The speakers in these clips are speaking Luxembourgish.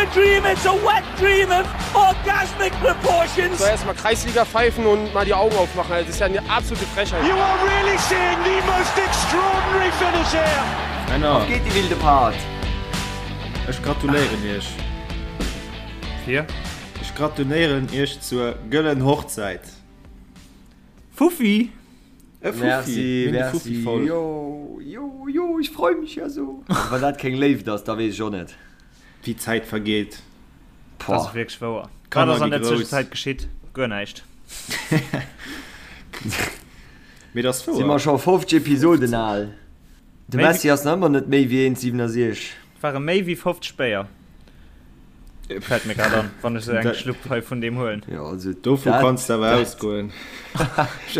a dream, it's a wet dream of orgasmic proportions. So erstmal Kreisliga pfeifen und mal die Augen aufmachen. Das ist ja eine absolute Frechheit. You are really seeing the most extraordinary finish here. Männer. Auf geht die wilde Part! Ech gratuléieren iech. Fir? Ech gratuléieren iech zur gëllen Hochzäit. Fuffi! E Fuffi. Merci, Mir hunn de merci. Fuffi voll. Jo, jo, jo, ech freu mech ja so. Wann dat keng Léift ass, da weess ech och net. Wéi d'Zäit vergeet. Dat ass wierklech wouer. Wat Kanner ass an gi der grouss. Zwëschenzäit geschitt? Guer näischt. Mee dat ass Si mer wouer. scho 50 Episoden al. De Méi wéi. Messi ass nach ëmmer net méi wéi 1,67. Et ware méi wéi 50 Béier. Fält mir grad an, wann ech sou eng Dat. Schlupp hei vun deem huelen. Jo, also Dovu dat, kanns de awer dat, ausgoen.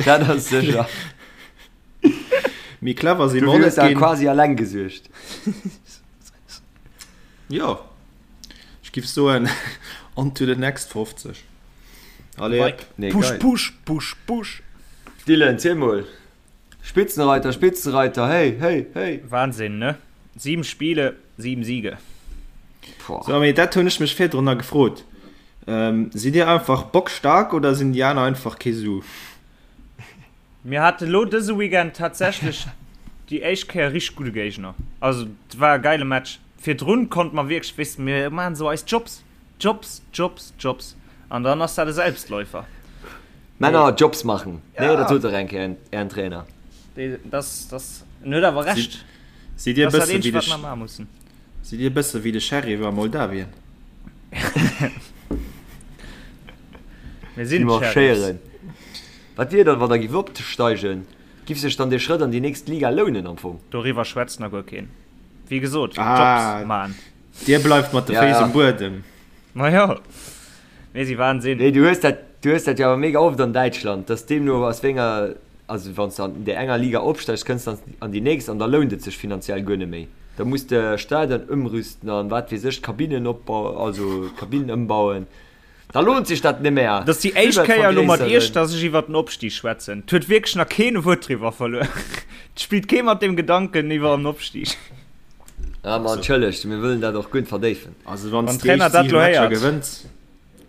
dat ass sécher. Méi clever si mer Dofir och hues net de ginn. quasi alleng gesuergt. Jo, ech giff soen, on to the next 50. Allez hop. Nee, Push, geil. push, push, push. Dylan, ziel mol. Spitzenreiter, Spitzenreiter, hey, hey, hey. Wahnsinn, ne? 7 Spiele, 7 Siege. Boah. So, mee dat hunn ech mech virdrun nach gefrot. Sidd dir einfach bockstark oder sinn déi aner einfach kee Su? Mir hate lo dëse Weekend tatsächlech déi éischt Kéier richteg gudde Géigner. Also et war e geile Match. Virdrun konnte mer wierklech, weess de, mir maachen esou eis Jobs, Jobs, Jobs, Jobs an dann ass dat e Selbstläufer. Männer Jobs machen, nee, dat Ja. sot dach eng Kéier ären Trainer. Dee, das, das, en huet awer Recht. Sidd dir e Dat ass dat bësse wéi eenzegt, de wat mer maache mussen. Sidd dir e bësse wéi de Sheriff a Moldawien? Mir Déi sinn d'Sheriffs. marschéieren. Wat wier dann, wann der giff opsteigen? Giff sech dann dee Schrëtt an déi nächst Liga lounen am Fong? Doriwwer schwätzt nach guer keen. Wéi gesot, Ah, Jobs man. Dir bleift mat de Ja, Féiss ja. um Buedem. Ma jo, mir si Wahnsinn. Nee, du hues dat, du hues dat jo awer mega oft an Däitschland, dass deemno aus wéi enger, also wann s de an där enger Liga opsteigs, kënns de an déi nächst an da lount et sech finanziell guer net méi. Da muss de Stadion ëmrüsten an wat weess ech, d'Kabinnen opbau, also d'Kabinnen ëmbauen. Da lohnt sich dat net méi. Dat ass déi éischt Kéier elo mat Iech, dass ech iwwer den Opstig schwätzen. Et huet wierklech nach keen e Wuert driwwer verluer. Et spillt kee mat dem Gedanken iwwer en Opstig. Ah ma entschëllegt, mir wëllen dat och guer net verdéifen. Also wann Wann s de déi Trainer éischt dat 7 lo Matcher héiert. gewënns.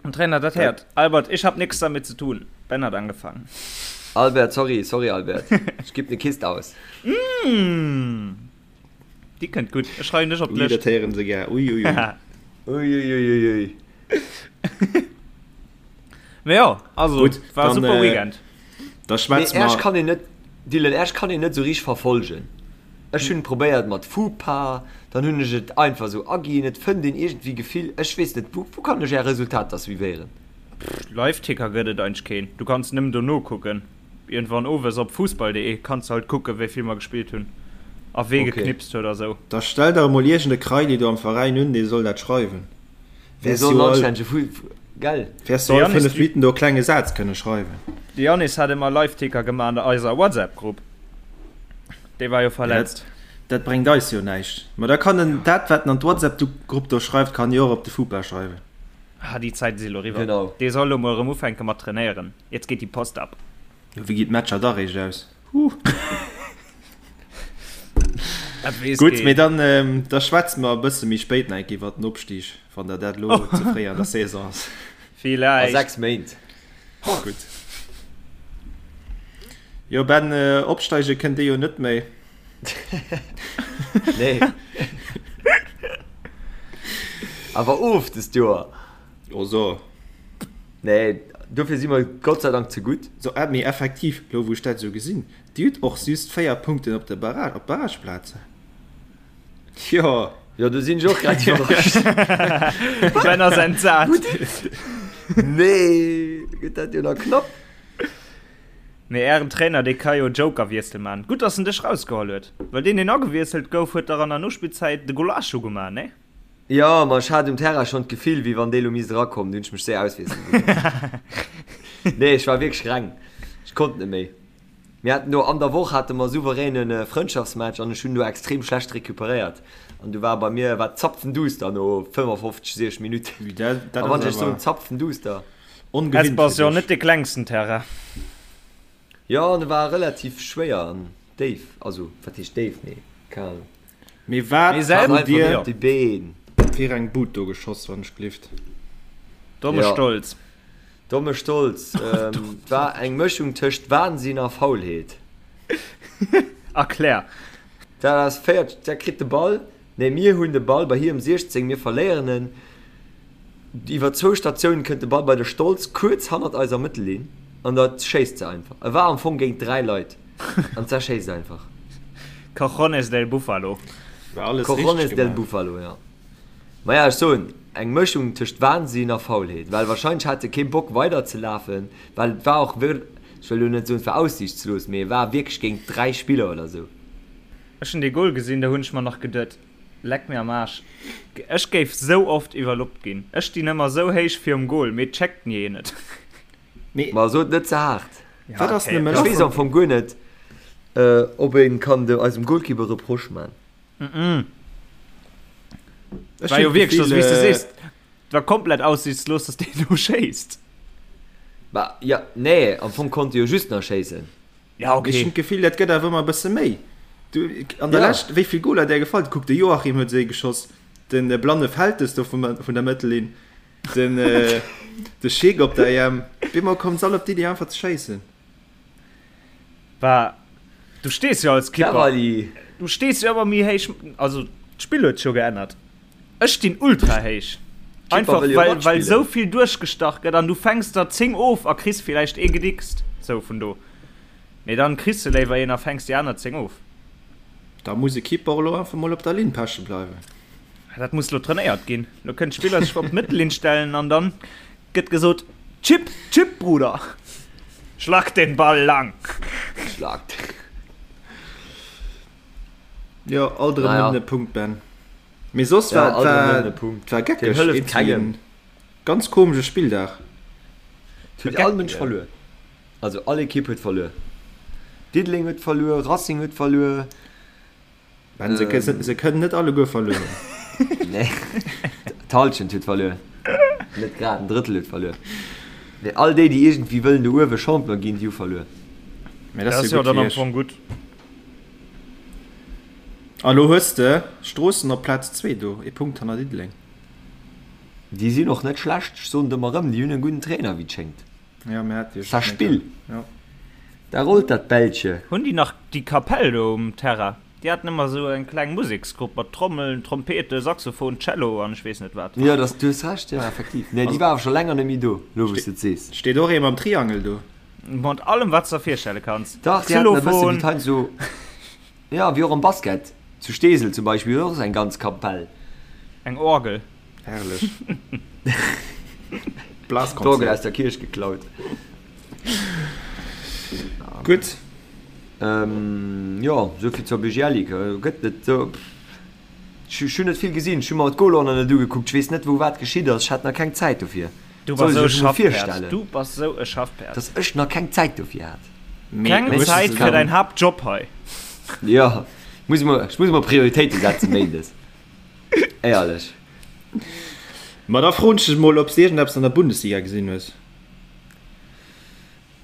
Wann Trainer dat héiert. Albert, ich hab nix damit zu tun. Ben hat angefangen. Albert, sorry, sorry Albert. Ech gib ne Kist aus. Déi kënnt gutt. Ech schreiwen dech op Ui, dat d'Lëscht. héieren se gär. Ui, ui, ui. Ui, ui, ui, ui, ui. Mee jo, also, Gutt, war e dann, super äh, Weekend. Da Mee schwätze Äerch mer. kann een net, Dylan, Äerch kann een net esou richteg verfolgen. Ech hunn probéiert mat Fupa, dann hunn ech et einfach esou aginn. Et fënnt een iergendwéi Gefill, ech weess net, wou, wou kann ech Är Resultater suivéieren? Live-Ticker gëtt et eigentlech keen. Du kanns nëmmen dono kucken. Iergendwann owes op fussball.de kanns de halt kucken, wéi vill mer gespillt hunn a wee Okay. geknipst huet a sou. Da stell der emol iergend e Kraili do am Veräin un, dee soll dat schreiwen. Dee Wäers soll jo en all, anstännege Fu, gell? wäers du De all Yannis, 5 Minutten do e klenge Saz kënne schreiwen. De Yannis hat ëmmer Live-Ticker gemaach an der eiser WhatsApp-Grupp. Dee war jo Ja, dat, verletzt. dat bréngt eis jo näischt. Ma da kann en dat, wat en an d'WhatsApp-Grupp do schreift, kann en jo och op de Fupa schreiwen. Ah, déi Zäite si lo eriwwer. Genau. Dee soll lo mol erëm ufänke mat trainéieren. Jetzt geht die Post ab. Jo, wéi ginn d'Matcher da réischt aus? Huh. Dat weess Gutt, keen. mee dann, ähm, da schwätze mer e bësse méi spéit nach eng Kéier iwwer den Opstig, wann der dat elo ze fréi an der Saison ass. A Villäicht. 6 Méint. Gutt. Jo, Ben, äh, opsteige kënnt Dir jo net méi. Nee. Awer of dëst Joer. Oh so. Nee, dofir si mer Gott sei Dank ze gutt. So, äh, mee effektiv, lo wou ech dat esou gesinn, Dir hutt och just 4 Punkten op de Barrage, op d'Barrageplazen. Jo. Jo, do sinn ech och grad iwwerrascht. Ben ass entsat. Nee, gëtt dat jo nach knapp. Mee ären Trainer, dee ka jo Joker-Wiessel man. Gutt, dass en dech rausgeholl huet, well deen, deen agewiesselt gouf, huet dach an der Nospillzäit de Golasso gemaach, nee? Jo, ma ech hat um Terrain schonn d'Gefill, wéi wann dee lo misst erakommen. Du hunn ech mech séier auswiessele gelooss. Nee, ech war wierklech reng. Ech konnt net méi. Mir haten do an der Woch hate mer souveräne Frëndschaftsmatch an ech hunn do extrem schlecht recuperéiert. An du war bei mir war zapfenduster no 55, 60 Minutten. Ui, dat, dat A wann ass ech soen awer zapfenduster. ongewinnt Hesper ass fir jo dech. net de klengsten Terrain. Jo, an e war relativ schwéier an déif. Also, wat heescht déif, mee keng Ahnung. Mee wat Mee selwer hutt dir, Op déi Been. Fir eng Bud do geschoss, wann ech gelift. Domme Ja. Stolz. Domme Stolz. Ähm, war eng Mëschung tëscht Wahnsinn a Faulheet. Erklär. Dat ass féiert, dat kritt de Ball, nee mir hunn de Ball bei hirem 16, mir verléieren en. Iwwer zwou Statiounen kënnt de Ball bei de Stolz kuerz hannert eiser Mëttellinn an da schéisst se einfach. E war am Fong géint 3 Leit an d'Sa schéisst einfach. Cojones del Buffalo. War alles richteg Cojones del gemaach. Buffalo, jo. Maja, ech soen, eng Mëschung tëscht Wahnsinn a Faulheet, well wahrscheinlech hat e kee Bock weider ze lafen, well et war och wir, ech wëll elo net soen, et war aussiichtslos, mee e war wierklech géint 3 Spiller oder sou. Ech hunn dee Goal gesinn, do hunn ech mer nach geduet, Leck mir am Aarsch, ech géif sou oft iwwerloppt ginn. Ech stinn ëmmer sou héich virum Goal, mee et checkt ni een et. Mee Ma sot net ze haart. Ja, wat ass okay, nëmme Ech lass weess am Fong guer net, ob een kann de eisem Goalkeeper Reproche man. Ech War jo hunn wierklech, d'Gefill, wéi s de äh, sees, et war komplett aussichtslos, dass deen do schéisst. Bah, ja, nee, am Fong konnt e jo just nach schéissen. Ja, Ech hunn okay. d'Gefill, dat gëtt awer ëmmer e bësse méi. Du, an der Ja. Lescht, wéi vill Goler där gefall? Kuck, de Joachim huet se geschoss, den blanne Feltes do vum, vun der Mëttellinn, den, äh, de Schick op der EM. Op eemol kommen se all op d'Iddi, einfach ze schéissen. War, du stees jo als Kipper, Cavali. du stees jo ëmmer méi héich, also d'Spill huet sech jo geännert. Ech stinn ultra héich. Kipper Einfach wëll jo well, well matspillen. sou vill duerchgestach gëtt an du fänks der 10 of a kriss villäicht ee gedickst, sou vun do. Mee dann kriss de léiwer een a fänks déi aner 10 of. Da muss e Keeper och elo einfach mol op der Linn peche bleiwen. Dat muss lo trainéiert ginn. Lo kënnen d'Spiller sech op d'Mëttellinn stellen an dann gëtt gesot, Chip, Chip, Bruder! Schlag den Ball lang! Schlag. Jo, alt erëm Naja. nëmmen e Punkt, Ben. Mee soss Ja, war alt erëm war nëmmen e Punkt. war Deen geckeg, hëlleft iergendwéi kengem. en ganz komesche Spilldag. Et huet all Mënsch verluer. Also all Ekipp huet verluer. Diddeleng huet verluer, Racing huet verluer. Ben, se, ähm, se kënnen net alleguer verluer hunn. Nee, d'Halschent huet verluer. Net grad, en Drëttel huet verluer. Mee all déi, déi iergendwéi wëllen do uewe Champion ginn, déi hu verluer. Mee Dat dat ass ass jo jo gutt dann fir am iech. Fong gutt. A lo hues de Stroossen op Plaz 2 do, ee Punkt hanner Diddeleng. Déi sinn och net schlecht, ech soen et ëmmer erëm, déi hunn e gudden Trainer, wéi et schéngt. Ja, mir hat jo Ça spill. Ja. Da rollt dat Bällche. Hunn déi nach déi Kapell do um Terrain? Déi haten ëmmer esou eng kleng Museksgrupp mat Trommeln, Trompete, Saxophon, Cello an ech weess net wat. Jo, dass, du hues Recht, jo, effektiv. Nee, déi war awer scho länger net méi do, lo wou s de et sees. Steet och ee mam Triangel do? Mat allem wat s de der virstelle kanns. Dach, déi haten e bësse wéi Xylophon. d'Heinsdo, jo, wéi och am Basket. Zu Steesel zum Beispill huet och eng ganz Kapell. Eng Orgel. Herrlech. D'Orgel aus der Kierch geklaut. Gutt. Jo, souvill zur BGL Ligue. Gëtt net sou. Ech hunn net vill gesinn. Ech hu mer d'Goler nach net ugekuckt. Ech weess net, wou wat geschitt ass. Ech hat nach keng Zäit dofir. Du bass Soll sou sech e emol Schaffpäerd. virstellen. Du bass sou e Schaffpäerd. Dass ech nach keng Zäit dofir hat. Keng Zäit fir däin Haaptjob hei. Jo, muss mer, ech muss mer Prioritéite setzen méindes. Éierlech. Ma da froen ech dech mol, ob s de iergendeppes an der Bundesliga gesinn hues.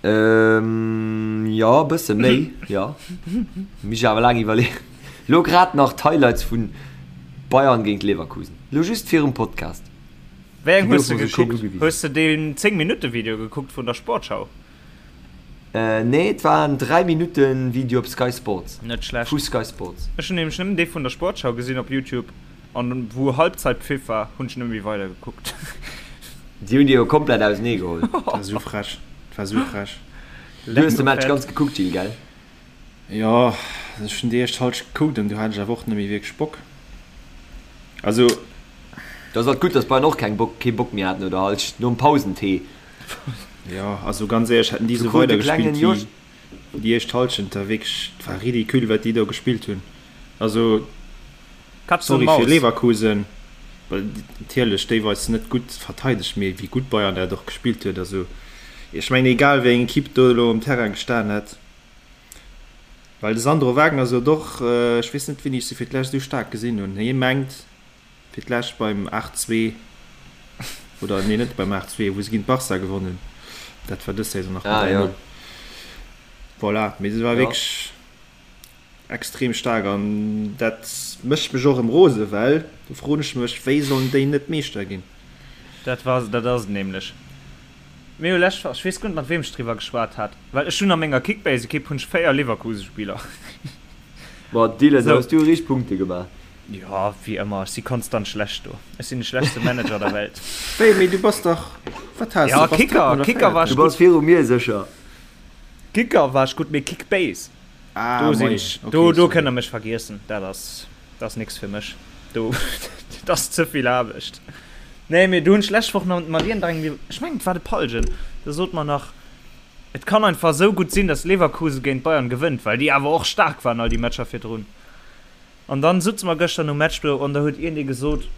Ähm, jo, e bësse méi, jo. Muss ech awer laang iwwerleeën. Lo grad nach d'Highlights vun Bayern géint Leverkusen. Lo just virum Podcast. Wéi eng Déi hues de goufe mer sou schéin gekuckt? ugewisen. Hues de deen 10 Minutte Video gekuckt vun der Sportschau? Nee, et war en 3 Minutten Video op Sky Sports. Net schlecht. Vu Sky Sports. Ech hunn nämlech nëmmen dee vun der Sportschau gesinn op Youtube an wou Halbzeitpfiff war, hunn ech nëmme méi weider gekuckt. Déi hunn déi jo komplett ausenee geholl. Dat war sou frech. Dat war sou frech. Du hues de Match ganz gekuckt, Gilles, gell? Jo, ech hunn déi éischt Halschent gekuckt an du hat ech awer och net méi wierklech Bock. Also. Da ass alt gutt, dass Bayern och keng Bock, kee Bock méi hat no der Halschent, nom Pausentee. Jo, also ganz éierlech, hätten déi esou weider gespillt wéi déi éischt Halschent, da wierklech, et war ridicule wat déi do gespillt hunn. Also sorry fir Leverkusen, well natierlech déiweis net gutt verteidegt, mee wéi gutt Bayern dat och gespillt huet. Also ech mengen egal wéi eng Equipe do elo um Terrain gestan hätt, well de Sandro Wagner sot och, ech weess net wéini ech se fir d'lescht esou staark gesinn hunn, hie mengt, Fir d'lescht beim 8, 2, oder nee net beim 8, 2, wou se géint Barca gewonnen hunn. Dat war dës Saison nach mat 3, 0. Voilà, mee se war wierklech. extrem staark an dat mécht mech och erëm rose well do froen ech mech, wéi sollen déi net Meeschter ginn? Dat war, dat ass et nämlech. Mir hu lescht Woch, ech weess guer net mat weem ech driwwer geschwat hat, well ech hunn a menger Kickbase-Ekipp hunn ech 4 Leverkusen-Spiller. Boah Dylan, da hues du richteg Punkte gemaach. Jo, wéi ëmmer, ech si konstant schlecht do. Ech sinn de schlechtste Manager der Welt. Wéi, mee du bass dach, wat has du? Ja, Kicker, Kicker war ech gutt. Du bass viru mir sécher. Kicker war ech gutt, mee Kickbase, do sinn ech, do, do kënnt der mech vergiessen. Dat ass. Dat ass nix fir mech. Do, dat ass ze vill Aarbecht. Nee, mee do hunn ech lescht Woch nach mat iergendengem, ech mengen et war de Palgen, do sot mer nach, et kann einfach esou gutt sinn, datt Leverkusen géint Bayern gewënnt, well déi awer och staark waren all déi Matcher virdrun. An dann sutze mer gëschter nom Match do an da huet iergendee gesot,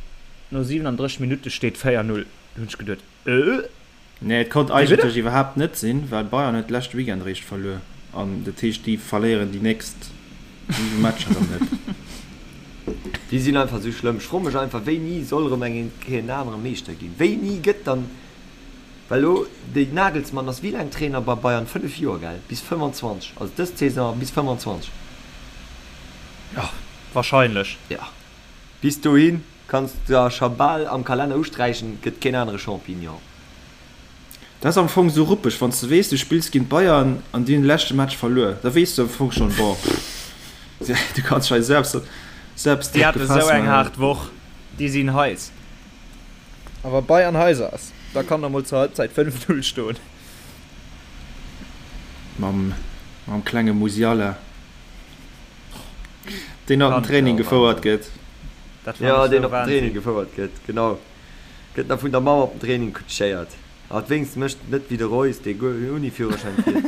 no 37 Minutte steet 4, 0. Do hunn ech geduet, Äh? Nee, et konnt eigentlech iwwerhaapt net sinn, well Bayern huet leschte Weekend eréischt verluer an dat heescht déi verléieren déi nächst 7 Matcher erëm net. Déi sinn einfach esou schlëmm. Ech froe mech einfach, wéini soll erëm eng Kéier en anere Meeschter ginn? Wéini gëtt dann, well elo de Nagelsmann ass wéi laang Trainer bei Bayern? 5 Joer, gell? Bis 25, also dës Saison bis 25. Jo, wahrscheinlech. Jo, bis dohin. Kanns der scho bal am Kalenner usträichen, et gëtt keen anere Champignon. Dat ass am Fong sou ruppeg, wann s de weess, du spills géint Bayern an déi hunn de leschte Match verluer, da weess du am Fong schonn, bon, pff, du kanns dech hei selbst, selbst Déi drop hate sou gefaass eng maachen. haart Woch, déi sinn heiß. A wa Bayern heiß ass, da kann der mol zur Halbzeit 5, 0 stoen. Mam, mam klenge Musiala. Deen op den Training gefouert gëtt. Jo, deen op den Training gefouert gëtt, genau. Gëtt nach vun der Mamm op den Training kutschéiert. Hat wéinst mécht net wéi de Reus, dee guer ouni Führerschäin fiert.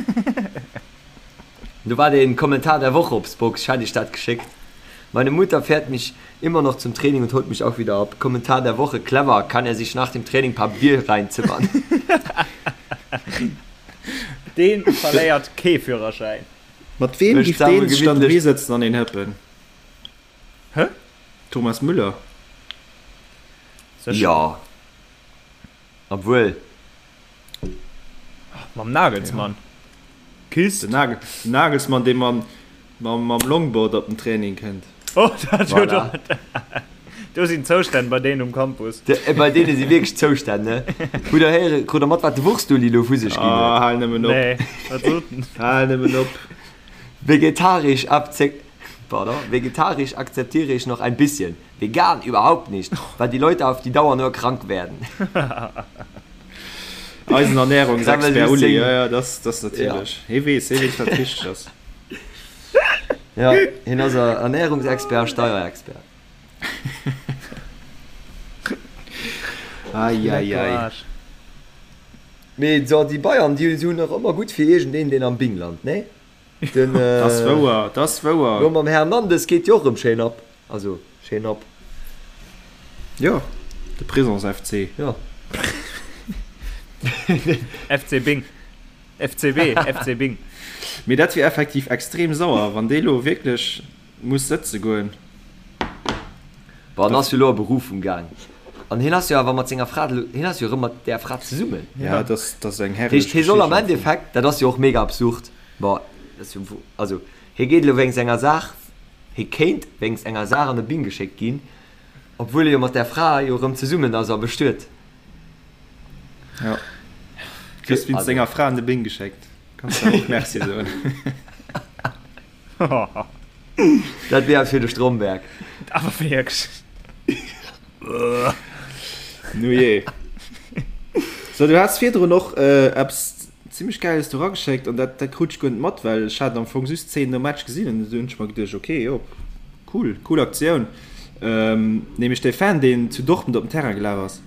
Do war den Kommentar der Woche op Spox, ech hat iech dat geschéckt. Meine Mutter fährt mich immer noch zum Training und holt mich auch wieder ab. Kommentar der Woche, Clever, kann er sich nach dem Training paar Bier reinzimmern. Deen verléiert kee Führerschäin. Mat weem giff deen sech dann dohi sëtzen an een hëppen? Hä? Thomas Müller? Sécher. Jo. Obwuel. Mam Nagelsmann. Kist. Den Nagel, den Nagelsmann, dee mam, mam, mam Longboard op den Training kënnt. Oh, dat huet Voilà. Do sinn Zoustänn bei deenen um Campus. De, bei deene si wierklech Zoustänn, ne? Hutt der héieren, krut der mat, wat de Wurstuli elo vu sech ginn huet? Ah, hal nëmmen op. Nee, wat sot en? Hal nëmmen op. Vegetarisch akze, pardon, vegetarisch akzeptiere ich noch ein bisschen, vegan überhaupt nicht, weil die Leute auf die Dauer nur krank werden. Eisen Ernährungsexpert Uli, ja, ja, das, das natierlech. Hie weess, hie weess, wat richteg ass. Ja, hien ass Ernährungsexpert a Steierexpert. Ai, ai, ai. Mee so, déi Bayern, déi sinn och ëmmer gutt fir iergendeen, deen am Bing lant, nee? Den, äh, Das wouer, das wouer. Lo mam Hernandez geet jo och erëm schéin ab. Also, schéin ab. Jo, de Prisons FC. Jo. FC Bing. FCB, FC Bing. Mee dat wier effektiv extrem sauer, wann dee lo wierklech muss sëtze goen. Bon, en ass jo lo a Berufung gaang. An hien ass jo awer mat senger Fra, hien ass jo erëm mat där Fra zesummen. Ja, dat ass, dat ass eng herrlech Heescht, hie soll am Endeffekt, dat ass jo och mega absurd, bon, dat ass jo, also hie geet elo wéinst enger Saach, hie kéint wéinst enger Saach an de Bing geschéckt ginn, obwuel e jo mat där Fra jo erëm zesummen ass a bestuet. Ja. Kriss wéinst senger Fra an de Bing geschéckt. Kanns de och Merci soen. Dat wier eppes fir de Stromberg. Awer wierklech. Nu jee. So, du has virdrun och äh, eppes zimmlech Gäiles do rageschéckt an dat, dat krut ech guer net mat, well ech hat am Fong just d'Zeen nom Match gesinn an du hunn ech mer geduecht, okay, jo, cool, cool Aktioun. Ähm, nämlech dee Fan, deen zu Dortmund op den Terrain gelaf ass.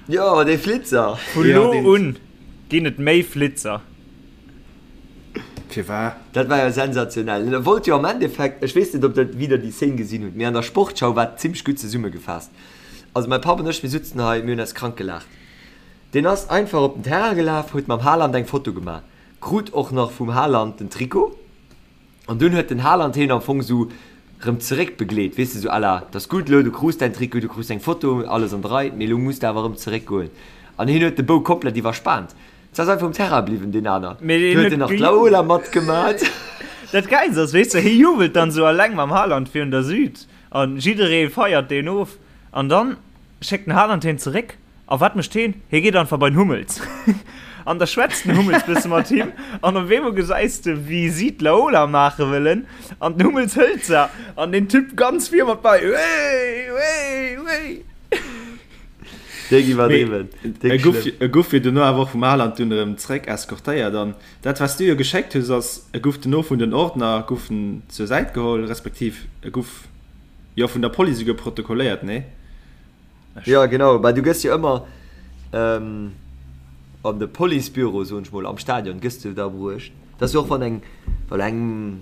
Jo, dee Flitzer. Vu lo un ginn et méi Flitzer. Firwat? Dat war jo sensationell. En wollt jo am Endeffekt, ech weess net, ob der wieder déi Szene gesinn hutt, mee an der Sportschau war et zimmlech gutt zesummegefaasst. Also mäi Papp an ech, mir sutzen hei, mir hunn eis krank gelaacht. Deen ass einfach op den Terrain gelaf, huet mam Haaland eng Foto gemaach, krut och nach vum Haaland den Trikot. An dunn huet den Haaland heen am Fong sou rëm zeréck begleet, weess de, sou à la, 't ass gutt elo, du krus däin Trikot, du krus eng Foto, alles an der Rei, mee elo muss de awer rëm zeréck goen. An heen huet de Bou komplett iwwerspaant. S ass einfach um Terrain bliwwen, deen aner. Mee Du huet en nach d'Laola matgemat. Dat Gäilst ass, weess de, hie jubelt dann sou alleng mam Haaland virun der Süd an jidderee feiert deen of an dann schéckt den Haaland hien zeréck a wat mécht hien? Hie geet einfach bei den Hummels an da schwätzt den Hummels bësse mat him an op eemol gesäis de wéi si d'Laola maache wëllen an den Hummels hëlt se an den Typ ganz vir mat bei, Wéi, wéi, wéi. Déck iwwerdriwwen, déck schlëmm. E guff jo dono awer och vum Haaland dunn erëm zeréck eskortéiert an dat wat s du jo geschéckt hues ass, e guff dono vun den Ordner guff en zur Säit geholl, respektiv e guff jo vun der Police esouguer protokolléiert, nee? Jo genau, bah du gëss jo ëmmer an de Policebüro, soen ech mol, am Stadion gëss du da bruecht. Dat ass jo och wann eng, well eng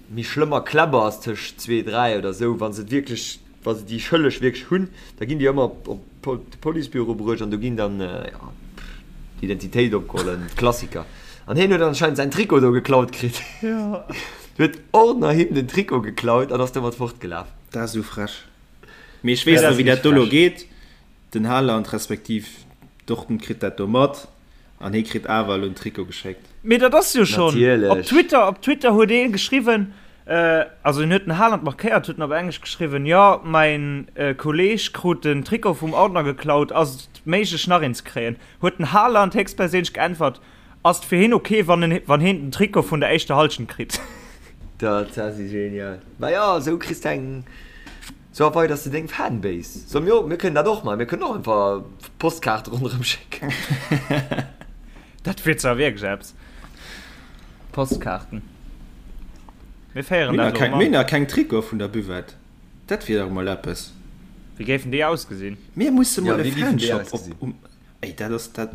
méi schlëmmer Kläpper ass tëscht zwee, dräi oder esou, wa se et wierklech Wa se déi Schëlleg wierklech hunn, da ginn déi ëmmer op de Policebüro bruecht an do ginn dann d'Identitéit opgeholl an Klassiker. An hien huet anscheinend säin Trikot do geklaut kritt. Huet Ordner him den Trikot geklaut an ass domat fortgelaf. Dat ass esou frech. Mee ech weess net, wéi dat do elo geet. Den Haaland respektiv Dortmund kritt dat do mat an hie kritt awer elo en Trikot geschéckt. Mee dat ass jo schonn op Twitter, op Twitter huet ee geschriwwen, also en huet den Haaland markéiert, huet en op Englesch geschriwwen, jo mäin Kolleeg krut den Trikot vum Ordner geklaut, ass et méiglech nach een ze kréien? Huet den Haaland héchstperséinlech geäntwert, ass et fir hien ok wann en wann hien den Trikot vun der éischter Hallschent kritt? Dat ass genial. Majo, esou kriss de eng. Sou erweiders de deng Fanbase. Soll mir och, mir kënnen dat och maachen, mir kënnen och einfach Postkaarte ronderëm schécken. Dat wier zwar wierklech eppes. Postkaarten. Mir féieren dat elo emol an. Mir hunn nach keng Trikote vun der Buvette. Dat wier dach emol eppes. Wéi géifen déi ausgesinn? Mir musse mol e Fanshop op. Ey, dat ass dat.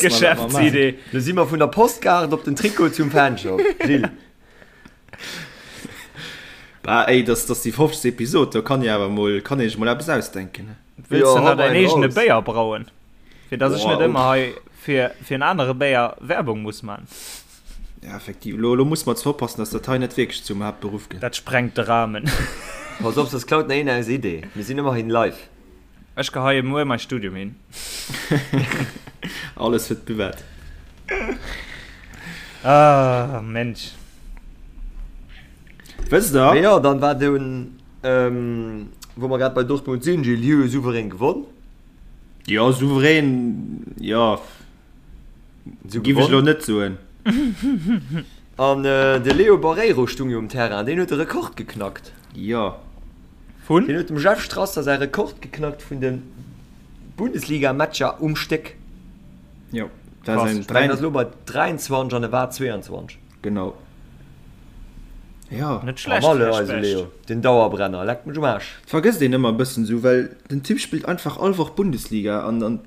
Geschäftsidee. Do si mer vun der Postkaart op den Trikot zum Fanshop, Gilles. Bah ey, dass dass déi 50. Episod, do kann ee awer mol, kann ee sech mol eppes ausdenken. Wëlls de nach däin eegene Béier brauen? Fir dass ech net ëmmer hei fir fir en anere Béier Werbung muss man. Ja, effektiv. Lo, lo muss mer zwar oppassen, dass dat hei net wierklech zum Haaptberuff gëtt. Dat sprengt de Rahmen. Pass op, soss klaut nach een eis Idee. Mir sinn ëmmerhin live. Ech geheie muer mäi Studium hin. Alles fir d'Buvette. Ah, Mensch. Wësst der? Mee jo, dann war dunn, wou mer grad bei Dortmund sinn, Gilles, déi hu jo souverän gewonn. Jo, souverän, jo, giff ech elo net soen. An de Leo Barreiro stung jo um Terrain, deen huet de Rekord geknackt. Jo. Vun? Deen huet dem Jeff Strasser säi Rekord geknackt vun de Bundesliga-Matcher um Stéck. Jo, dat ass en. Deen ass elo bei 23 an e war 22. Genau. Jo. Net schlecht, Här Specht. Leo, den Dauerbrenner, leckt mech um Aarsch. Vergësst een ëmmer e bëssen esou, well den Typ spillt einfach all Woch Bundesliga an an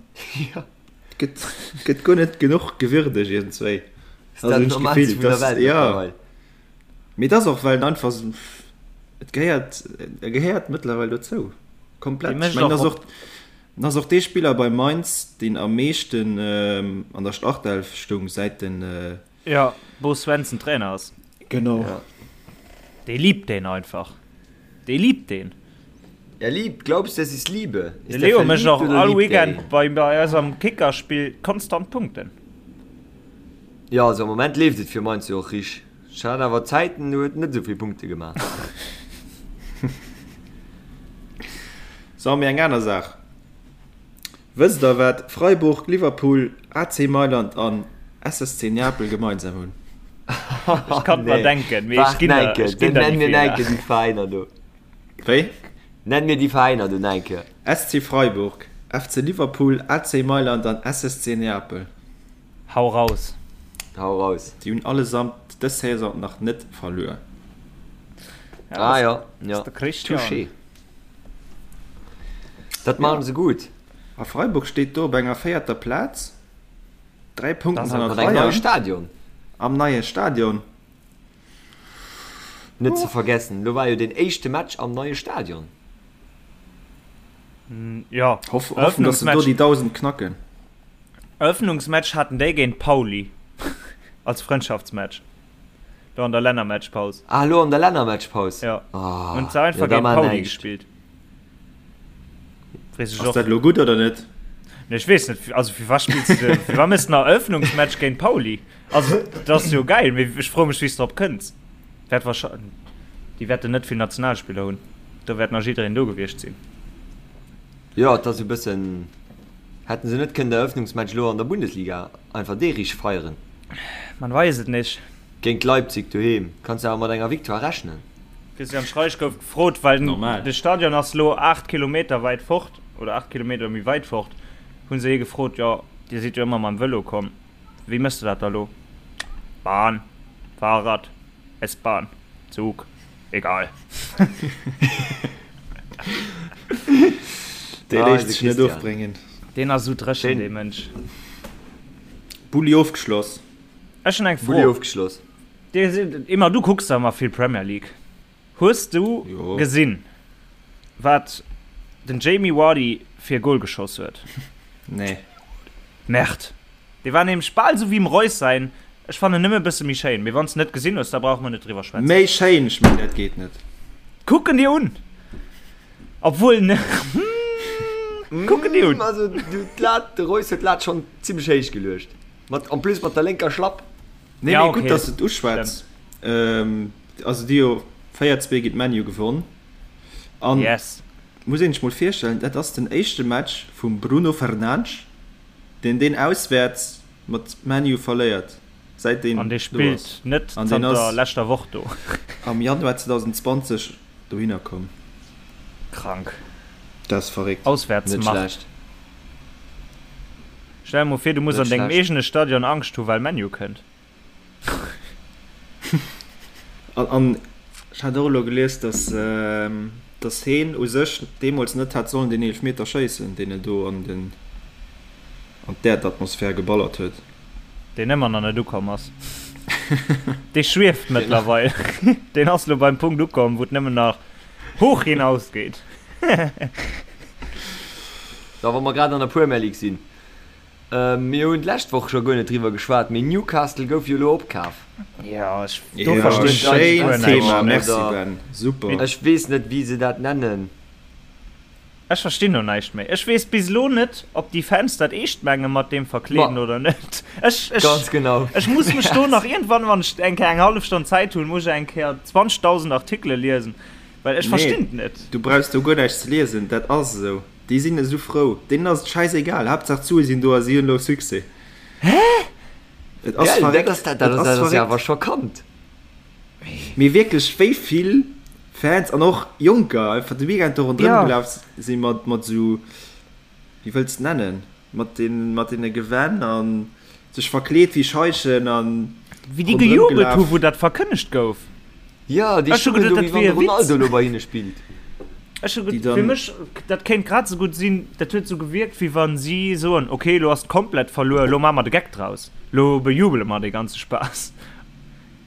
gëtt gëtt guer net genuch gewürdegt iergendzwéi. Ass dat d'Normaalste vun der Welt mëttlerweil. Mee et ass och well en einfach esou, et gehéiert, e gehéiert mëttlerweil dozou. Komplett. Ech mengen, ass och, en ass och dee Spiller bei Mainz, deen am meeschten an der Startelf stoung säit den. Jo, Bo Svensson Trainer ass. Genau. Ja. Dee liebt deen einfach. Dee liebt deen. Er liebt, glaubst du, das ist Liebe? Ist De Leo mécht och all Weekend bei, bei eis am Kickerspill konstant Punkten. Jo, also am Moment leeft et fir Mainz jo och richteg. Ech hat awer Zäiten, do huet en net esou vill Punkte gemaach. So, mee eng aner Saach. Wësst der, wat Freiburg, Liverpool, AC Mailand an SSC Neapel gemeinsam hunn? Ech kann et mer denken, mee ech ginn der, ech ginn der déi Nenn mir enke déi Veräiner do. Wéi? Nenn mir déi Veräiner do enke. SC Freiburg, FC Liverpool, AC Mailand an SSC Neapel. Hau raus. Hau raus. Déi hunn allesamt dës Saison nach net verluer. Ah jo, jo. Touché. Dat maachen se gutt. A Freiburg steet do op enger véierter Plaz, 3 Punkten hannert Bayern. Stadion. Am neie Stadion. Net ze vergessen, lo war jo den éischte Match am neie Stadion. Jo, Hoffen, dass se do déi 1.000 knacken. Eröffnungsmatch haten déi géint Pauli als Frëndschaftsmatch do an der Lännermatchpaus. Ah, lo an der Lännermatchpaus? Jo, hunn se einfach géint Pauli gespillt. Weess ech och. Ass dat elo gutt oder net? Nee, ech weess net, also fir wat spills de, fir wat méchs de en Eröffnungsmatch géint Pauli? Also, dat ass jo gäil, mee ech froe mech, wéi s de drop kënns. Wäert wahrscheinlech, déi wäerten net vill Nationalspiller hunn, do wäert nach jiddereen do gewiescht sinn. Jo, et ass e bëssen, hätten se net kënnen de Eröffnungsmatch elo an der Bundesliga einfach dee richteg feieren? Man weis et nicht. Géint Leipzig doheem kanns de awer mat enger Victoire rechnen. Christian Streich gouf gefrot, well de Stadion ass lo 8 Kilometer wäit fort oder 8 Kilometer méi wäit fort, hu se hie gefrot, jo Dir sidd jo ëmmer mam Vëlo komm, wéi méchs de dat da lo? Bahn, Fahrrad, S-Bahn, Zug, egal. Dee léisst sech net ofbréngen. Deen ass esou dréchen, dee Mënsch. Bulli ofgeschloss. Ech hunn eng Fro. Bulli ofgeschloss. Dir sidd ëmmer, du kucks da ëmmer vill Premier League. Hues du gesinn, wat den Jamie Vardy fir e Goal geschoss huet? Nee. Merde. Dee war nämlech bal esou wéi dem Reus säin. Ech fannen nëmme e bësse méi schéin. Mee wann s de net gesinn hues, da brauche mer net driwwer schwätzen. Méi schéin? Ech mengen, dat geet net. Kuck en dir un. Obwuel, ne, kuck en dir un. Also, du, d'Lat, de Reus huet d'Lat schonn zimmlech héich geluecht. Mat, en plus mat der lénker Schlapp. Nee, ja, mee okay. gutt, dass du et uschwätz. Ähm, also déi jo 4-2 géint ManU gewonn. An yes. muss een sech mol virstellen, dat ass den éischte Match vum Bruno Fernandes, deen deen auswäerts mat ManU verléiert, säit deen An dee spillt net zanter leschter Woch do. Am Januar 2020 dohinner komm. Krank. Dat ass verréckt. Auswäertsmacht. Stell der mol vir, du muss an dengem eegene Stadion Angscht hu well ManU kënnt. An ech hat och elo gelies, dass dass heen u sech deemools net hätt sollen deen Eelefmeter schéissen, deen en do an den an d'Äerdatmosphär geballert huet. Deen ëmmer nach net ukomm ass. Dee schwieft mëttlerweil. Deen ass elo beim Punkt ukomm, wou et nëmmen nach hoch hinaus geet. So, wa mer grad an der Premier League sinn, mir hunn d'lescht Woch scho guer net driwwer geschwat, mee Newcastle gouf jo elo opkaf. Jo, ech, do verstinn ech schéint guer näischt. Thema, merci Ben, super. Ech weess net, wéi se dat nennen. Ech verstinn do näischt méi. Ech weess bis elo net, ob déi Fans dat eescht menge mat deem Verkleeden oder net. Ech, ech, Ganz genau. ech muss mech do nach iergendwann, wann ech eng Kéier eng hallef Stonn Zäit hunn, muss ech eng Kéier 20.000 Artikele liesen, well ech verstinn et net. Du brauchs do guer näischt ze liesen, dat ass esou. Déi sinn esou frou, deenen ass et schäisegal, Haaptsaach d'Sue sinn do a si hunn elo Succès. Hä? Et ass Gell, verréckt, dat ass, dat et ass, ass dat ass jo verréckt. awer schockant. Mee wierklech, wéi vill Fans an och Jonker einfach de Weekend do ronderëm Ja. gelaf si mat, mat esou, wéi wëlls de et nennen, mat den, mat deene Gewänn a sech verkleet wéi Scheichen a Wéi déi ronderëm gejubelt hu gelaf. wou dat verkënnegt gouf. Jo, déi Ech hu stoungen geduet, do, dat wéi wann wier de e Witz. Ronaldo elo bei hinne spillt. Ech hu Déi fir dann. mech, dat kéint grad esou gutt sinn, dat huet esou gewierkt, wéi wa si soen, ok, elo ass et komplett verluer, elo maache mer de Geck draus, elo bejubele mer dee ganze Spaass.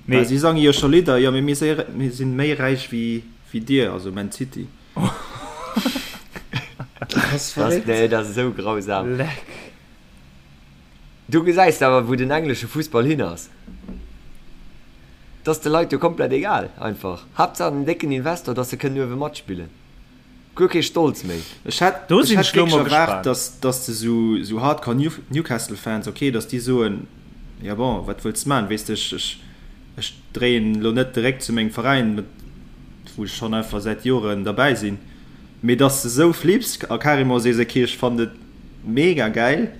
Mee Mee si sange jo scho Lidder, jo, mee mir si méi räich wéi dir, also Man City. Dat ass verréckt. Nee, dat ass esou grausam. Leck. Du gesäis awer, wou den englesche Fussball hin ass. Et ass de Leit jo komplett egal einfach. Haaptsaach den décken Investor, dass se kënnen uewe matspillen. Guer kee Stolz méi. Ech hätt Do ech sinn hätt ech lo wierklech mol erwaart, gespaant. dass dass de sou sou Hardcore New Newcastle Fans, ok, dass déi soen, ja bon, wat wëlls de man, weess de, ech ech ech dréien lo net de Réck zu mengem Veräin, mat wou ech schonn einfach säit Joren derbäi sinn, mee dass de sou flips a carrément sees, ok, ech fannen et mega gäil.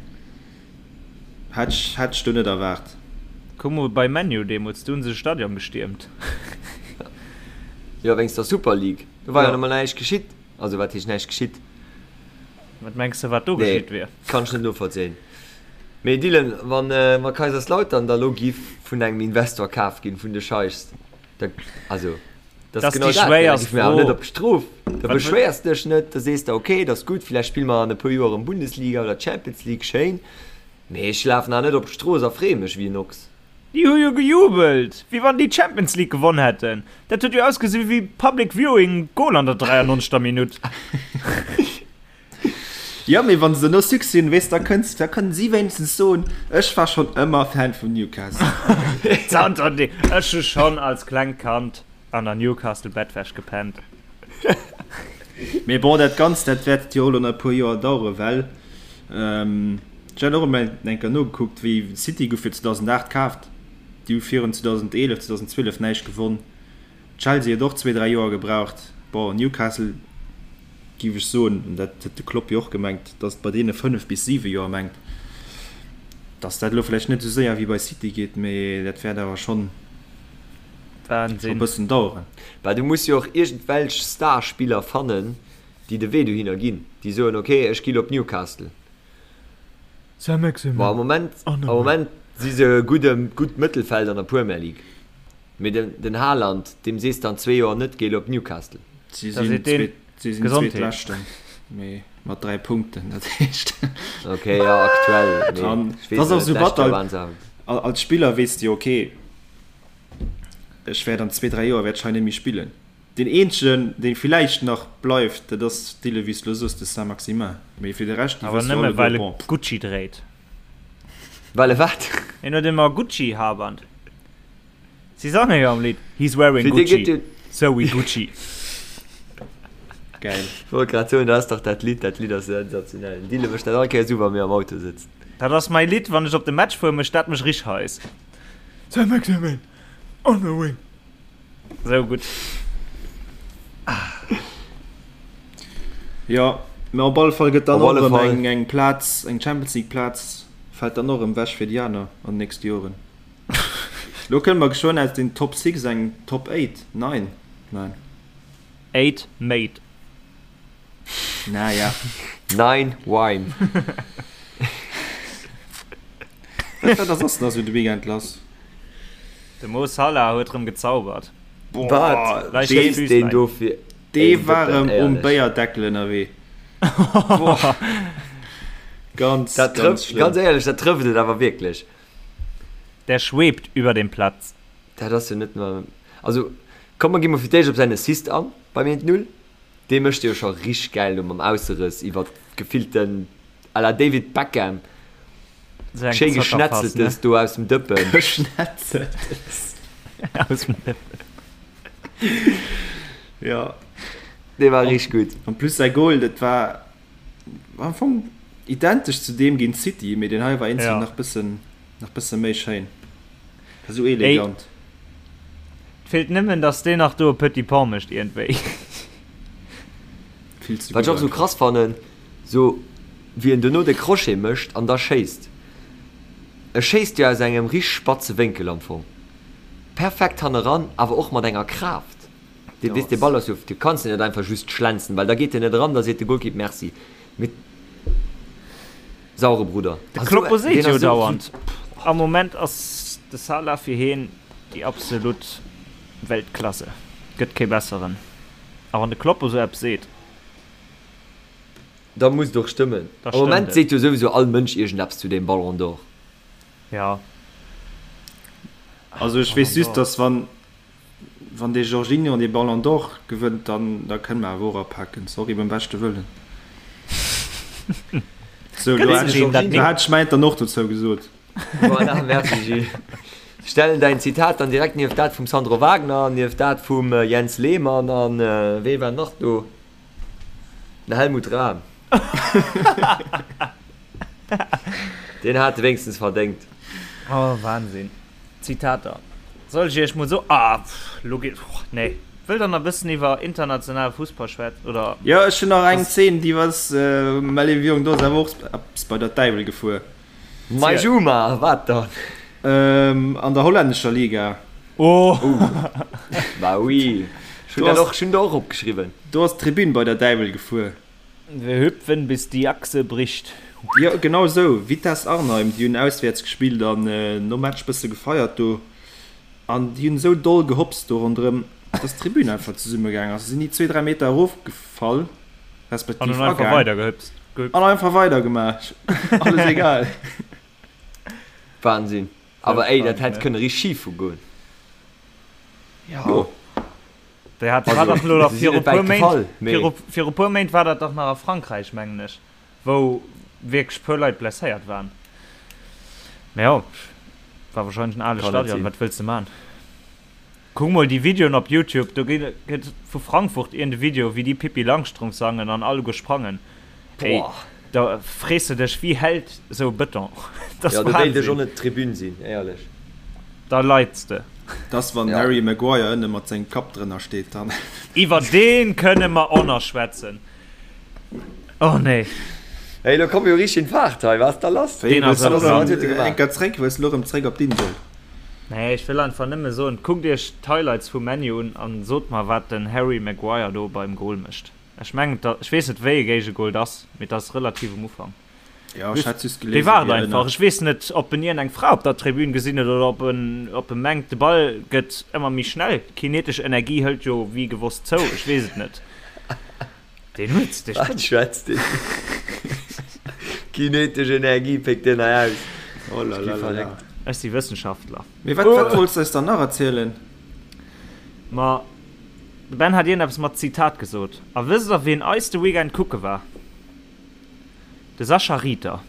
Hätt ech, hätt ech do net erwaart. Kuck mol bei ManU deemols, do hunn se de Stadion gestiermt. Jo, wéinst der Super League. Do war jo Jo. nach mol näischt geschitt. Also wat heescht näischt geschitt? Wat mengs de wat do Nee, geschitt wier? kann ech net novollzéien. Mee Dylan, wann, wa Kaiserslautern da lo giff vun engem Investor kaf ginn, vun de Scheichs, da, also dat ass Dass genau déi dat, gell, da schwéierst giff mir awer net Fro. op d'Strof. Da Wat wëll. beschwéiers dech net, da sees de, okay, dat ass gutt, villäicht spille mer an e puer Joer erëm Bundesliga oder Champions League, schéin, mee ech lafen awer net op d'Strooss a freeë mech wéi en Ochs. Déi hu jo gejubelt, wéi wann déi d'Champions League gewonn hätten. Dat huet jo ausgesi wéi Public Viewing Goal an der 93. Minutt. Jo, mee wann se no Succès hunn, weess, da kënns, da kënnen si wéinstens soen, ech war schonn ëmmer Fan vun Newcastle. Zanter dee, ech hu schonn als klengt Kand an der Newcastle Bettwäsch gepennt. Mee bon, dat Ganzt, dat wäert jo elo nach e puer Joer daueren, well. Ech hat och emol eng Kéier nogekuckt, wéi City gouf jo 2008 kaaft, déi hu virun 2011, 2012 näischt gewonn. Chelsea huet och zwee, dräi Joer gebraucht. Bon, Newcastle géif ech soen, an dat huet de Klopp jo och gemengt, datt et bei deene 5 bis 7 Joer mengt, datt dat elo vläicht net esou séier wéi bei City geet, mee dat wäert awer schonn e bëssen daueren. Well du muss jo och iergendwelch Starspiller fannen, déi de Wee dohinner ginn, déi soen, ok, ech gi lo op Newcastle. Bon, am Moment, am Moment si se e gudde, gutt Mëttelfeld an der Premier League. Mee den, den Haaland, deem sees de an zwee Joer net, géi lo op Newcastle. Si sinn zweet, si sinn Zweetleschten, mee mat 3 Punkten, dat heescht. Ok, jo, aktuell, mee ech weess net, d'lescht Joer waren se awer. Als Spiller weess de jo, ok, ech wäert an zwee, dräi Joer wäert ech hei net méi spillen. Deen eenzegen, dee villäicht nach bleift, dat ass, Dylan, wéi s de elo soos, de Saint-Maximin. Mee fir de Rescht, déi wësse jo alleguer, bon. Awer nëmme well e Gucci dréit. Well e wat? Hien huet ëmmer Gucci-Haarband. Si sange jo am Lidd, He's wearing Gucci, so we Gucci. Geil. Ech wollt grad soen, dat ass dach dat Lidd, dat Lidd ass sensationell. Den Dylan mécht dat all Kéiers u, wa mir am Auto sëtzen. Dat ass mäi Lidd, wann ech op de Match fueren, mécht dat mech rich heiß. Saint-Maximin on the wing. Sou gutt. Jo, mä op alle Fall gëtt dann och erëm eng, eng Plaz, eng Champions League Plaz fält dann och erëm wech fir déi aner an den nächste Joren. Lo kënne mer geschwënn aus den Top 6 eng Top 8, 9, 9. 8 mate. Naja. 9 wine. Wat war da soss nach sou de Weekend lass? De Mo Salah huet rëm gezaubert. Wat schéisst deen do fir Dee war rëm um Béierdeckel ënnerwee. Boah. Ganz, dat ganz schlëmm. Ganz éierlech, dat trëfft et awer wierklech. Der schwebt über dem Platz. Dat ass jo net normal. Also, komm mer gi mol fir d'éischt op säin Assist an beim 1-0. Dee mécht e jo scho richteg gäil do mam Ausserëss iwwer gefillten à la David Beckham. Schéi Geschnetzeltes do aus dem Dëppen. Geschnetzeltes. Aus dem Dëppen. Ja. Dee war richteg gutt. En plus säi Goal, dat war am Fong identesch zu deem géint City, mee deen hei war eenzel nach bëssen, nach bësse méi schéin. War sou elegant. Et feelt nëmmen, dass deen nach do e Petit Pont mécht iergendwéi. Vill ze gutt. Wat ech och sou krass fannen, Sou wéi en dono de Crochet mécht an da schéisst. E schéisst jo aus engem richteg spatze Wénkel am Fong. Perfekt hanneran, awer och mat enger Kraaft. Dee weess, dee Ball ass jo, du kanns en net einfach just schlenzen, well da geet en net eran, da seet de Golkipp Merci. Mee sauere Brudder. De Kloppo seet jo dauernd, am Moment ass de Salah fir hien déi absolut Weltklasse, gëtt kee besseren. A wann de Kloppo sou eppes seet. Da muss et och stëmmen. Am Moment seet jo souwisou all Mënsch iergendeppes zu deem Ballon d'Or. Jo. Also ech weess just, dass wann wann dee Jorginho dee Ballon d'Or gewënnt, dann da kënne mer awer och apaken. Sorry, beim beschte Wëllen. Sou, lo hat ech hat ech mäint dann och dozou gesot. Voilà, merci Gilles. Stellen däin Zitat dann direkt nieft dat vum Sandro Wagner, nieft dat vum Jens Lehmann an wee war nach do? Den Helmut Rahn. Deen hat e wéinstens verdéngt. Oh, Wahnsinn. Zitater. Soll ech iech mol so. Ah, pff, lo geet. Oh, nee. Wëllt der nach e bëssen iwwer internationale Fussball schwätzen, oder? Jo, ech hunn nach eng Zeen, déi ass, mä léiwe Jong, do ass awer och eppes bei der Däiwel gefuer. Mei Juma, wat dann? An der hollännescher Liga. Oh! Bah oui, ech hunn dat och, ech hunn der och opgeschriwwen. Do ass d'Tribün bei der Däiwel gefuer. Wir hüpfen bis die Achse bricht. Jo, genau esou. Vitesse Arnheim, déi hunn auswäerts gespillt an nom Match bësse gefeiert do. An déi hunn esou doll gehopst do ronderëm, dass d'Tribün einfach zesummegaang ass. Se sinn déi zwee, dräi Meter erofgefall, respektiv agaang. An hunn einfach weidergehüpst. An einfach weidergemaach. Alles egal. Wahnsinn. Awer ey, dat hätt kënne richteg schif goen. Jo. Déi hat war dach lo nach viru puer Méint, viru, viru puer Méint war dat dach nach a Frankräich, mengen ech, wou wierklech puer Leit blesséiert waren. Mä jo, war wahrscheinlech en ale Stadion, wat wëlls de man? Kuck mol déi Videoen op Youtube, do gëtt vu Frankfurt iergend e Video, wéi déi Pippi Langstrumpf sangen an alleguer sprangen. Ey. Da frees de dech, wéi hält esou e Bëton? Dat ass Wahnsinn. Jo, do wéilt ech och net Tribün sinn, éierlech. Da leits de. Dass wann den Harry Maguire ënne mat sengem Kapp drënner steet, dann. Iwwer deen kënne mer och nach schwätzen. Oh nee. Hey, lo komm jo richteg in Fahrt hei, wat ass da lass? Deen ass awer Wëlls du gemaach? Eng Kéier zréck, wëlls du lo rëm zréck op d'Insel? Nee, ech wëll einfach nëmme soen, kuckt iech d'Highlights vu ManU un an sot mer wat den Harry Maguire do beim Goal mécht. Ech mengen, ech weess net wéi e Géigegol et ass, mee et ass relativ um Ufank. Ja, ech hat just gelesen, Dee waart einfach. Ech weess net, ob en iergendeng Fra op der Tribün gesinn huet oder ob en, ob e mengt, de Ball gëtt ëmmer méi schnell. D'kinetesch Energie hëlt jo wéi gewosst zou. Ech weess et net. Deen huet, dee Wat spënnt. schwätzt deen? Kinetesch Energie péckt deen hei aus. Oh la la la la. Ech si Wëssenschaftler. Mee wat, wat wollts de eis dann nach erzielen? Ma de Ben hat iergendeppes mat Zitat gesot. A wësst der, wien eis de Weekend kucke war? De Sascha Rieter,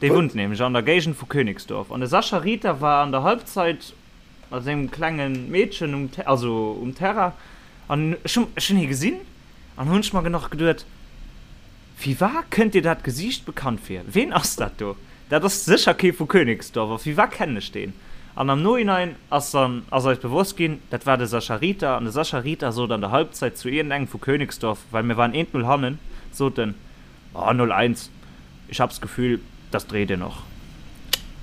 dee wunnt nämlech an der Géigend vu Königsdorf. An de Sascha Rieter war an der Halbzeit mat sengem klenge Meedchen um, also um Terrain. An ech hunn, ech hunn hie gesinn an hunn ech mer nach geduet, Firwat kënnt dir dat Gesiicht bekannt vir? Ween ass dat do? Dat ass sécher kee vu Königsdorf. A firwat kennen ech deen? An am Nohinein ass dann, ass eis bewosst ginn, dat war de Sascha Rieter. An de Sascha Rieter sot an der Halbzeit zu iergendengem vu Königsdorf, well mir waren eent Null hannen, sot en, Oh, 0, 1, ich hab's Gefühl, das dreht ihr noch.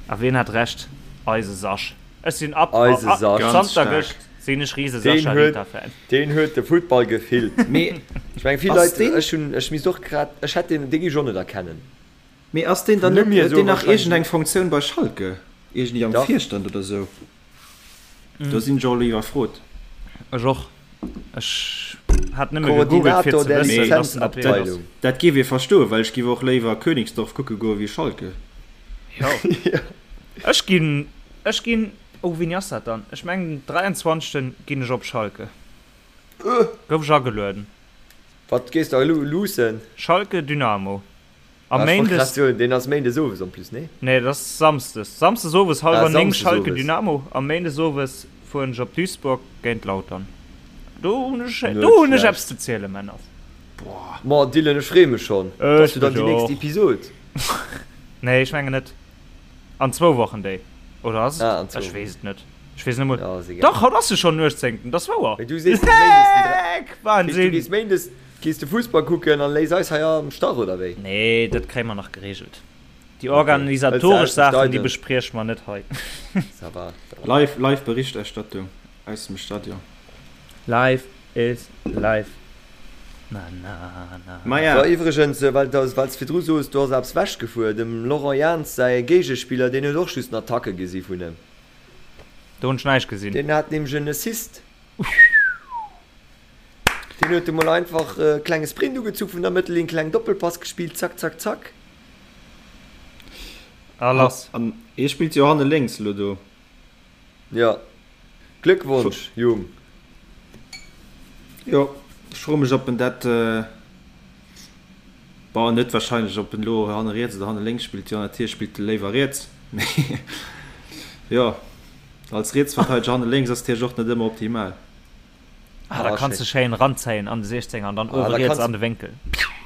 A wien hat Recht? Eise Sasch. Ech sinn ab, Eise Sasch. Ganz zanter gëscht sinn ech rise Deen Sascha huet, Rieter-Fan. deen huet de Futtball gefillt. Mee Ech meng, vill ass Leit, deen, ech hunn, ech misst och grad, ech hätt deen, dee géif ech och net erkennen. mee ass deen dann Vum Numm net, hier huet esou deen nach wahrscheinlech iergendeng net. Funktioun bei Schalke? Iergendwéi am Dach. Virstand oder sou? Do sinn ech och elo iwwerfrot. Ech och. Ech hat nëmme gegoogelt fir Koordinator ze der wëssen, dass en dat wierklech ass. Lizenzabteilung. Dat géif ee verstoen, well ech géif och léiwer Königsdorf kucke goe wéi Schalke. Jo. Ech ginn, ech ginn, oh wéini ass dat dann? Ech mengen den 23. Ginn ech op Schalke. Gouf ech agelueden. Wat gees de elo luussen? Schalke Dynamo. A Ah, ech wollt grad Méindes. soen, deen ass Méindes owes en plus, nee? Nee, dat ass Samsdes. Samsdes owes Ah, hallwer 9 Samsdes Schalke owes. Dynamo a Méindes owes fueren ech op Duisburg géint Lautern. Do hunn ech, Net do hunn ech schlecht. eppes ze zielen, Männer. Boah. Ma Dylan, ech freeë mech schonn. Dat ass Ech jo dann mech déi nächst och. Episod. Nee, ech mengen net. An zwou Wochen déi. Oder ass et? Ah, an zwou Ech weess et net. Ech weess net mol. Ja, ass egal. Dach, haut ass jo schonn den 18. Dat ass wouer. Mee du sees bis Méindes den 3. Leck! Heescht, du Wahnsinn! gees Méindes Gees de Fussball kucken an léiss eis hei am Stach, oder wéi? Nee, dat kréie mer nach geregelt. Déi Okay. Hëls organisatoresch de aus dem Saachen, déi Stadion? besprieche mer net hei. Ça va, ça va. Live, live Berichterstattung aus dem Stadion. Life is life, na na na. Maja. So, iwwregens, well s de virdru soos, do ass eppes wechgefuer, dem Laurent Jans säi Géigespiller, deen huet och just en Attacke gesi vun em. Do hunn ech näischt gesinn. Deen hat nämlech en Assist. Deen huet emol einfach e klenge Sprint ugezu vun der Mëttellinn, kleng Doppelpass gespillt, zack, zack, zack. A lass. An hie spillt jo hanne lénks elo do. Jo. Gléckwonsch, Jung. Jo, ech froe mech, ob en dat, bon, net wahrscheinlech, ob en elo hanne riets oder hanne lénks spillt. Jo, natierlech spillt e léiwer riets, mee jo, als Rietsverteideger hanne lénks ass natierlech och net ëmmer optimal. Ah, da Ah, kanns du schéin. schéin ranzéien an de 16er an dann Ah, uewe da riets kanns an de Wénkel.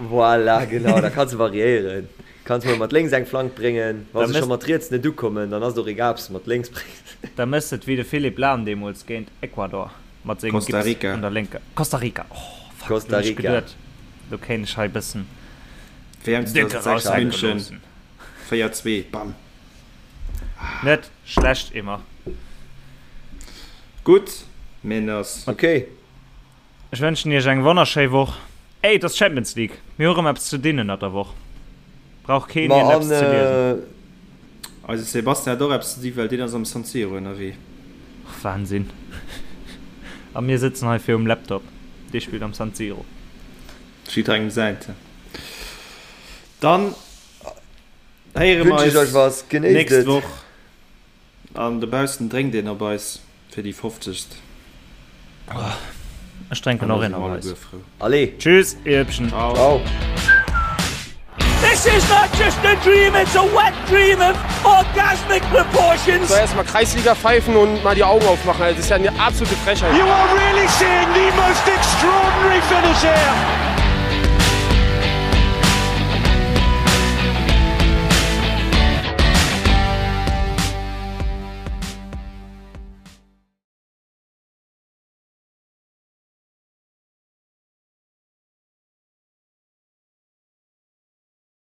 Voilà, genau, da kanns du variéieren. Kanns mol mat lénks eng Flank bréngen, wa Da se scho mëss, mat riets net ukommen, dann ass et och egal, ob s de mat lénks bréngs. da mëss et wéi de Philipp Lahm deemools géint Ecuador mat sengem Costa Gips Rica. un der lénker. Costa Rica, oh fuck, Costa do hunn ech Rica. geduet, do kéint ech hei bëssen WM déck 2006 eraushänke München, loossen. 4, 2, bam. Net schlecht, Emma. Gutt, Männers. Ok. Ech wënschen iech eng wonnerschéi Woch. Ey, et ass Champions League. Mir hu rëm eppes ze dinn ënnert der Woch. Brauch keen Ma iergend an eppes ze liesen. Eise Sebastian huet och eppes ze di, well deen ass am San Siro ënnerwee. Och Wahnsinn. A mir sëtzen hei virum Laptop. Dee spillt am San Siro. Jidderengem säint. Dann héiere mer wënsch ech eis euch was. Genéisst nächst et. Woch. An dobaussen drénkt een op eis fir déi fofzegst. Ech drénken An da och si een mer op eis. alleguer frou. Allez. Tschüss, ihr Hübschen. Ciao. Ciao. This is not just a dream, it's a wet dream of orgasmic proportions. So, erstmal Kreisliga pfeifen und mal die Augen aufmachen. Also, das ist ja eine absolute Frechheit. You are really seeing the most extraordinary finish here.